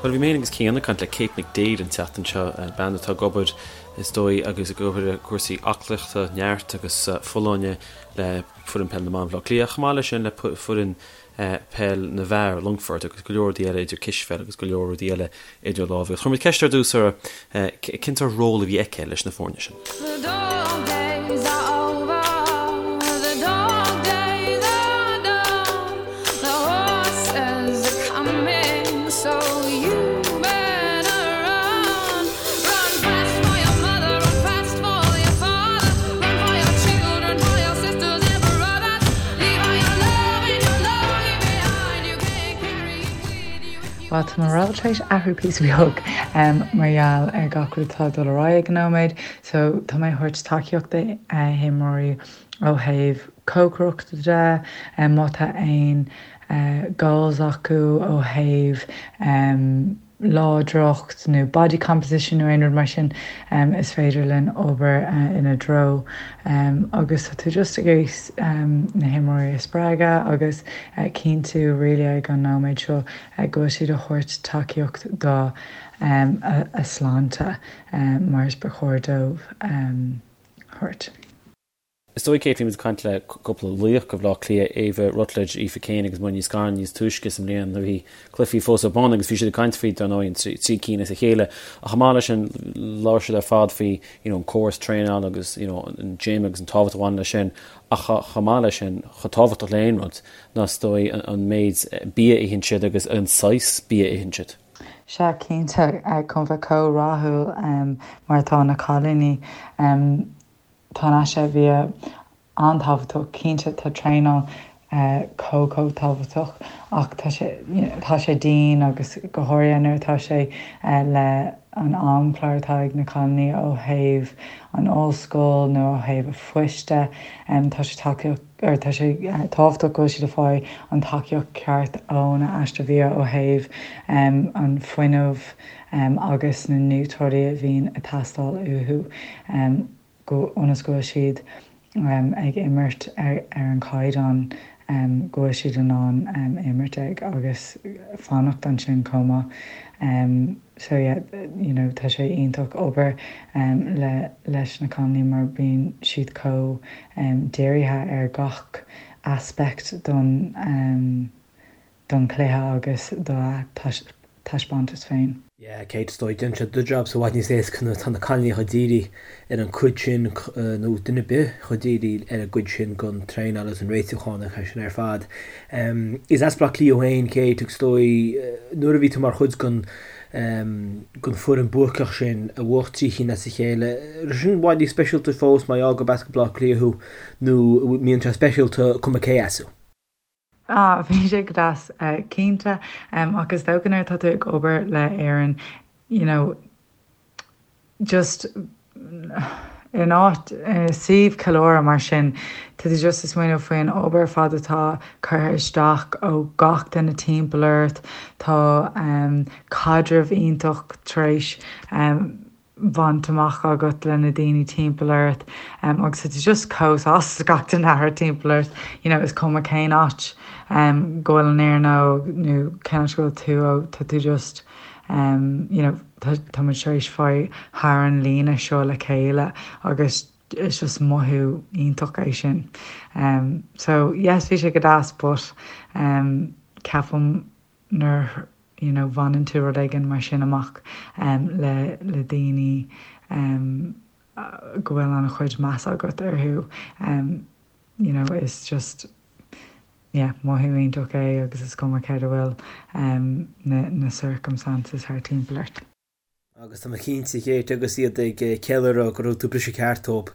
Bhuel, bhí mé féin agus Cian ag caint le Kate McDaid an tseachtain seo, bean atá ag obair, is dóigh, agus ag obair i gcúrsaí aclaíochta, neart agus folláine le foireann peil na mban Bhaile Átha Cliath, chomh maith leis sin le foireann peil na bhfear Longfort agus go leor rudaí eile idir cispheil agus go leor rudaí eile idir lámha. Agus chuir muid ceist ar dtús uirthi cén sórt ról a bhí aici leis na foirne sin. Bhuel, tá mo ról tar éis athrú píosa beag mar gheall ar gach rud atá ag dul ar aghaidh ag an nóiméad. So, tá mé ag thabhairt tacaíocht do himreoirí ó thaobh cócaireachta de, má tá aon goals acu ó thaobh láidreacht nó body composition nó aon rud mar sin, is féidir linn obair ina dtreo agus tá tú just ag iarraidh na himreoirí a spreagadh agus cinntiú really ag an nóiméad seo go bhfuil siad a thabhairt tacaíocht do a sláinte mar is ba chóir dóibh thabhairt. Is dóigh, Kate, bhí muid ag caint le cúpla laoch de Bhaile Átha Cliath, Ava Rutledge, Aoife Kane agus Muireann Ní Scanláin níos túisce sa mbliain nuair a bhí cluichí fós ar bun agus bhí siad ag caint faoi, dar ndóigh, an 3 cinn as a chéile. Ach chomh maith leis sin, labhair siad ar fad faoi you know, an córas traenála agus you know, an gym agus an tábhacht a bhaineann leis sin. Ach chomh maith leis sin, chomh tábhachtach le aon rud ná is dóigh an méid bia a itheann siad agus an saghas bia a itheann siad. Sea, cinnte, chun bheith chomh rathúil mar atá na cailíní. Tá an aiste bhia an-tábhachtach, cinnte tá traenáil chomh chomh tábhachtach ach tá sé tá sé dian agus go háirithe nuair atá sé le an amchlár atá ag na cailíní ó thaobh an ollscoil nó ó thaobh a phoist de tá sé tacaíocht or tá sé tábhachtach go bhfuil siad ag fáil an tacaíocht ceart óna aiste bhia ó thaobh an fuinneamh agus na núitreoidí a bhíonn ag teastáil uathu go ionas go bhfuil siad ag imirt ar an chaighdeán go bhfuil siad in ann imirt ag agus fanacht ansin chomh maith. So yeah, you know, tá sé iontach obair le leis na cailíní mar bíonn siad chomh dírithe ar gach aspect don don chluiche agus dá taispeántas féin. Yeah, Kate, is dóigh, déanann sé do jobsa i bhfad níos éasca nuair atá na cailíní chomh dírithe ar an gcuid sin, nó duine ar bith chomh dírithe ar an gcuid sin den traenáil agus an réitiúchán agus sin ar fad. Is as Baile Átha Cliath thú féin, Kate, agus is dóigh, nuair a bhí tú mar chuid den den foireann buacach sin a bhuaigh 3 chinn as a chéile, raibh sin i bhfad níos speisialta fós mar gheall gurb as Baile Átha Cliath thú, nó mbíonn sé speisialta cuma cé as thú? Ah, bhí sé go deas, cinnte. Ach is dócha nuair atá tú ag obair le Éirinn, you know, just in áit, i suíomh ceiliúradh mar sin, tá tú just ag smaoineamh faoin obair ar fad atá curtha isteach ó gach duine timpeall ort, tá caidreamh iontach tar éis bhaint amach agat le na daoine timpeall ort agus tá tú just chomh sásta gach duine atá timpeall ort you know is cuma cén áit go bhfuil an fhoireann ó nó cén áit go bhfuil tú ó tá tú just you know tá tá muid tar éis fáil thar an líne seo le chéile agus is just mothú iontach é sin. So yes bhí sé go deas but ceapaim nuair you know bhaineann tú rud éigin mar sin amach le le daoine go bhfuil an-chuid meas agat orthu you know is just yeah mothú iontach é agus is cuma céard a bhfuil na na circumstances thar timpeall ort. Agus tá mé cinnte, Kate, agus iad ag ceiliúradh go raibh tú briseadh ceart dóibh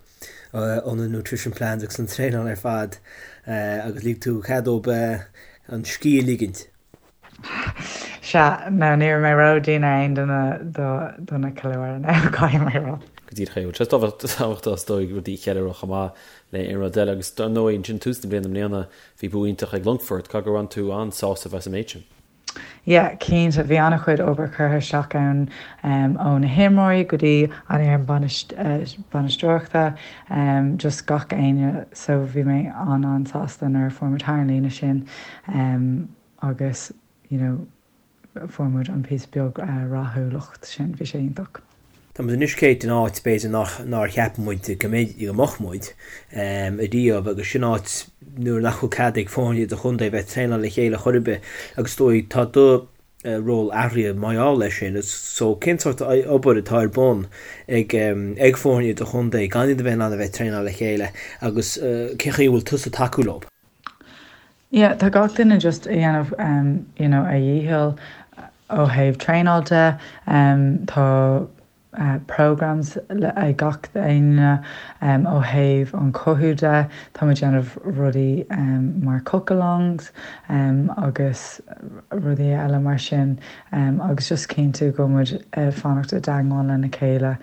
ó na nutrition plans agus an traenáil ar fad agus lig tú cead dóibh an scíth a ligint. Sea, no, ní raibh mé ró-dian ar aon duine do na ceiliúradh, no, caithfidh mé a rá. Go díreach é. Bhuel, tá sé tábhachtach is dóigh rudaí a cheiliúradh chomh maith le aon rud eile agus dar ndóigh ansin tús na bliana i mbliana bhí bua iontach ag Longfort, caithfidh gur bhain tú an-sásamh as an méid sin. Yeah, cinnte, bhí an-chuid obair curtha isteach ann ó na himreoirí go dtí an fhoireann bainisteoireachta, just gach éinne so bhí mé an-an-sásta nuair a fuair muid thar an líne sin agus you know. fuair muid an píosa beag rathúlacht sin, bhí sé iontach. Tá muid anois Kate in áit b'fhéidir nach nár cheap muid go mbeidh go mbeadh muid ariamh agus sin áit nuair nach bhfuil cead ag foirne idirchontae bheith ag traenáil le chéile chor ar bith agus is dóigh tá do ról athraithe mar gheall leis sin so cén sórt obair atá ar bun ag ag foirne idirchontae gan iad a bheith in ann a bheith ag traenáil le chéile agus cén chaoi a bhfuil tusa ag tacú leo? Yeah, tá gach duine just ag déanamh you know a dhícheall ó thaobh traenáil de, tá programs ag gach éinne ó thaobh an chothú de, tá muid ag déanamh rudaí mar cook-alongs agus rudaí eile mar sin agus just cinntiú go bhfuil muid ag fanacht i dteagmháil lena chéile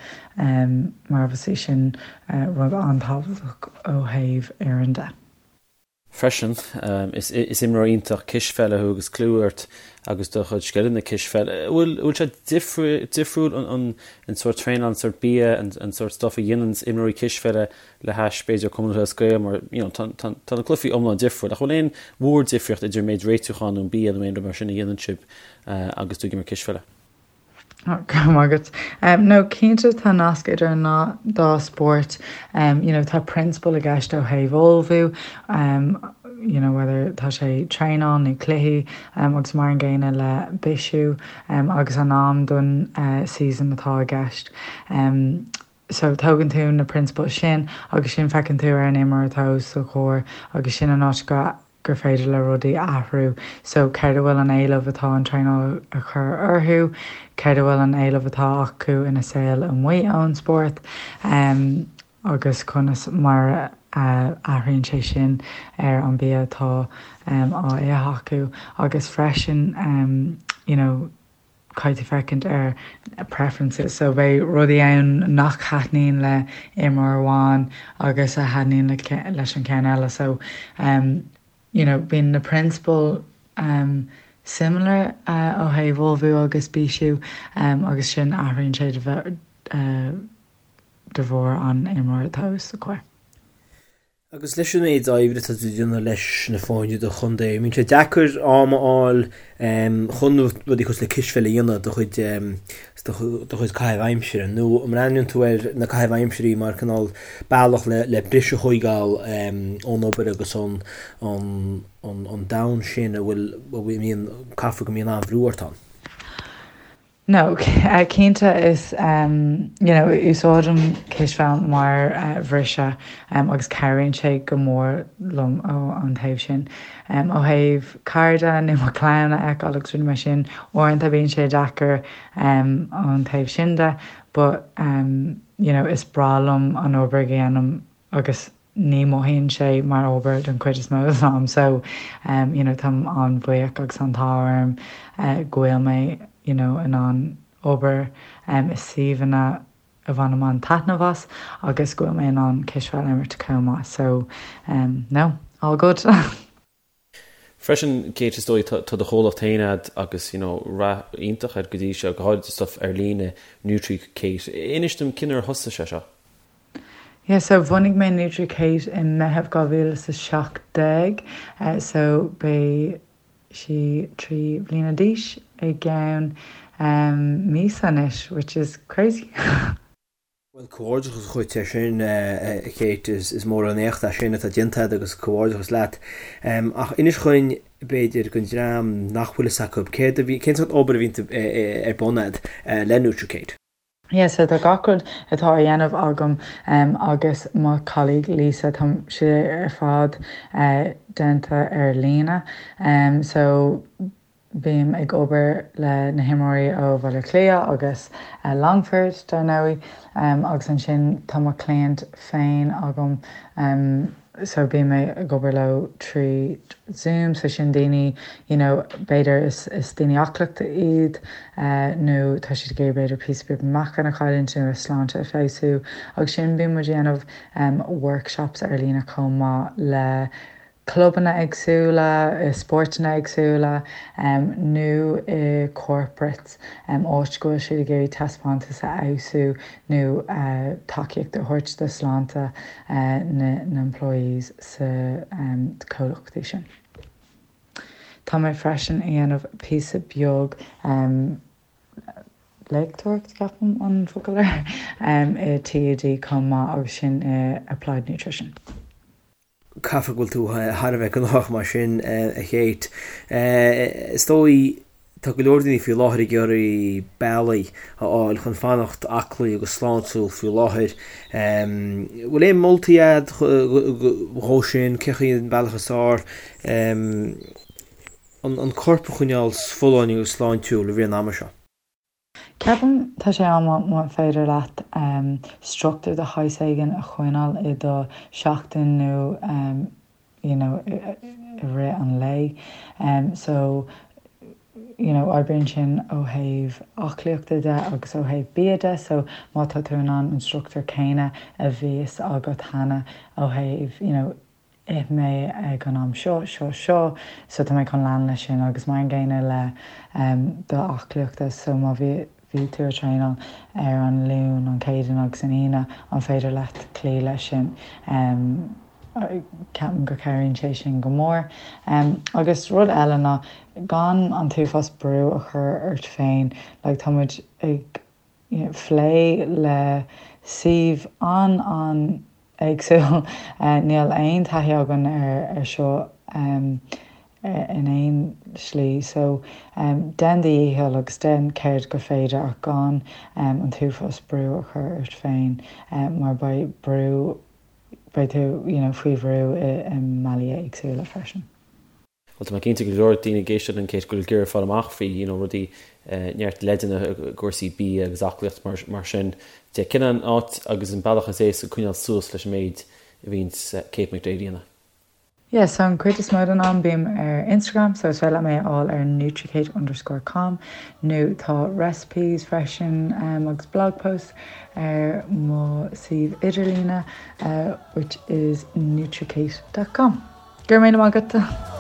mar obviously sin rud an-tábhachtach ó thaobh fhoireann de. Freisin, is imreoir iontach cispheile thú agus clú ort agus do chuid scileanna cispheile. An bhfuil bhfuil sé difriúil an an sórt traenáil, an sórt bia, an sórt stuff a dhéanann imreoirí cispheile le hais b'fhéidir Cumann Lúthchleas Gael mar you know tá tá tá na cluichí iomlán difriúil. Ach bhfuil aon mhór difríocht idir an méid réitiúcháin nó an bia nó aon rud mar sin a dhéanann sibh agus tú ag imirt cispheile? Go raibh maith agat. No, cinnte tá nasc idir an dá spórt. You know, tá prionsabail i gceist ó thaobh ullmhú, you know, whether tá sé traenáil nó cluichí agus mar an gcéanna le bisiú agus an am don season atá i gceist. So tógann tú na prionsabail sin agus sin feiceann tú ar an imreoir atá os do chomhair agus sin an áit go gur féidir le rudaí athrú. So céard a bhfuil an éileamh atá an traenáil a chur orthu, céard a bhfuil an éileamh atá acu ina saol amuigh ón spórt agus conas mar a athraíonn sé sin ar an bia atá á ithe acu agus freisin you know, caithfidh tú féachaint ar preferences so beidh rudaí ann nach thaitníonn le imreoir amháin agus a thaitníonn le leis an ceann eile so um you know bíonn na prionsabail um similar uh, ó thaobh ullmhú agus bisiú um agus sin athraíonn sé de bheith uh, de bharr an imreoir atá os do chomhair. Agus leis an méid oibre atá tú ag déanamh leis na foirne idirchontae, an mbíonn sé deacair am a fháil chun rudaí cosúil le cispheil a dhéanamh do chuid do chuid caitheamh aimsire, nó an mbreathnaíonn tú ar na caithimh aimsirí mar cineál bealach le le briseadh a thóigeáil ón obair agus ón ón domhan sin a bhfuil a mbíonn caithfidh go mbíonn an-bhrú ort ann? No, cinnte is you know úsáidim cispheil mar bhriseadh agus cabhraíonn sé go mór liom ó an taobh sin. Ó thaobh cairde nó mo chlann a fheiceáil agus rudaí mar sin, uaireanta bíonn sé deacair ón taobh sin de but you know is breá liom an obair a dhéanaim agus ní mothaíonn sé mar obair don chuid is mó den am so you know táim an-bhuíoch agus an t-ádh orm go bhfuil mé you know in ann obair i suíomhanna a bhainim an-taitneamh as agus go bhfuil mé in ann cispheil a imirt chomh maith so no, all good. Freisin, Kate, is dóigh, tá do chomhlacht féin a'd agus, you know, rath iontach air go dtí seo, go háirid stuff ar líne, NutriKate. Inis dom cén uair a thosaigh sé seo? Yeah, so bhunaigh mé NutriKate i Meitheamh 2017, so beidh sí 3 bliana d'aois i gceann míosa anois, which is crazy. Bhuel, comhghairdeachas dhuit ar sin, a Kate, is mór an éacht é sin atá déanta agat agus comhghairdeachas leat. Ach inis dhuinn, b'fhéidir, don dream nach bhfuil fhios acu, céard a bhí, cén sórt obair a bhíonn ar bun agat le NutriKate? Yeah, so tá gach rud atá á dhéanamh agam agus mo colleague Lisa, tá sé ar fad déanta ar líne. So Bím ag obair le na himreoirí ó Bhaile Átha Cliath agus Longford, dar ndóigh, agus ansin tá mo chliaint féin agam so bím ag obair leo trí Zoom, so sin daoine you know b'fhéidir is is daoine aclaíochta iad nó tá siad ag iarraidh b'fhéidir píosa beag meáchain a chailliúint nó a sláinte a fheabhsú agus sin bíonn muid ag déanamh workshops ar líne chomh maith le clubanna éagsúla, i spórtanna éagsúla nó i corporates, áit go bhfuil siad ag iarraidh taispeántas a fheabhsú nó tacaíocht a thabhairt do sláinte na n-employees sa comhlachtaí sin. Tá mé freisin ag dhéanamh píosa beag léachtóireacht, ceapaim an focal air, i TUD chomh maith agus sin i Applied Nutrition. Caithfidh go bhfuil tú thar a bheith gnóthach mar sin, a Kate. Is dóigh, tá go leor daoine faoi láthair ag iarraidh bealaí a fháil chun fanacht aclaí agus sláintiúil faoi láthair. Bhfuil aon moltaí agat dhó sin? Cé chaoi an bealach is fearr an corp a choinneáil folláin agus sláintiúil i rith an ama seo? Ceapaim tá sé an-mhaith má féidir leat struchtúr de shaghas éigin a choinneáil i do sheachtain nó you know i rith an lae. So you know oibríonn sin ó thaobh aclaíochta de agus ó thaobh bia de so má tá tú in ann an struchtúr céanna a bhíos agat cheana ó thaobh you know ith mé ag an am seo, seo, seo, so tá mé chun lean leis sin agus mar an gcéanna le do aclaíochta so má bhí bhí tú ag traenáil ar an Luan, an Chéadaoin agus an Aoine, an féidir leat cloí leis sin? Ceapaim go cabhraíonn sé sin go mór. Agus rud eile ná gan an t-uafás brú a chur ort féin, like tá muid ag plé le suíomh an-an-éagsúil. Níl aon taithí againn ar seo in aon slí so déan do dhícheall agus déan céard gur féidir ach gan an t-uafás brú a chur ort féin mar beidh brú, beidh tú you know faoi bhrú i mbealaí éagsúla freisin. Bhuel, tá mé cinnte go leor daoine ag éisteacht linn Kate go bhfuil ag iarraidh fáil amach faoi you know rudaí, neart leideanna i gcúrsaí bia agus aclaíocht mar mar sin de. Cén an áit agus an bealach is éasca coinneáil suas leis an méid a bhíonns Kate McDaid a dhéanamh? Yeah, so an cuid is mó den am bím ar Instagram, so is féidir leat mé a fháil ar nutrikate underscore com nó tá recipes freisin agus blog posts ar mo suíomh idirlíne which is nutrikate dot com. Go raibh míle maith agat!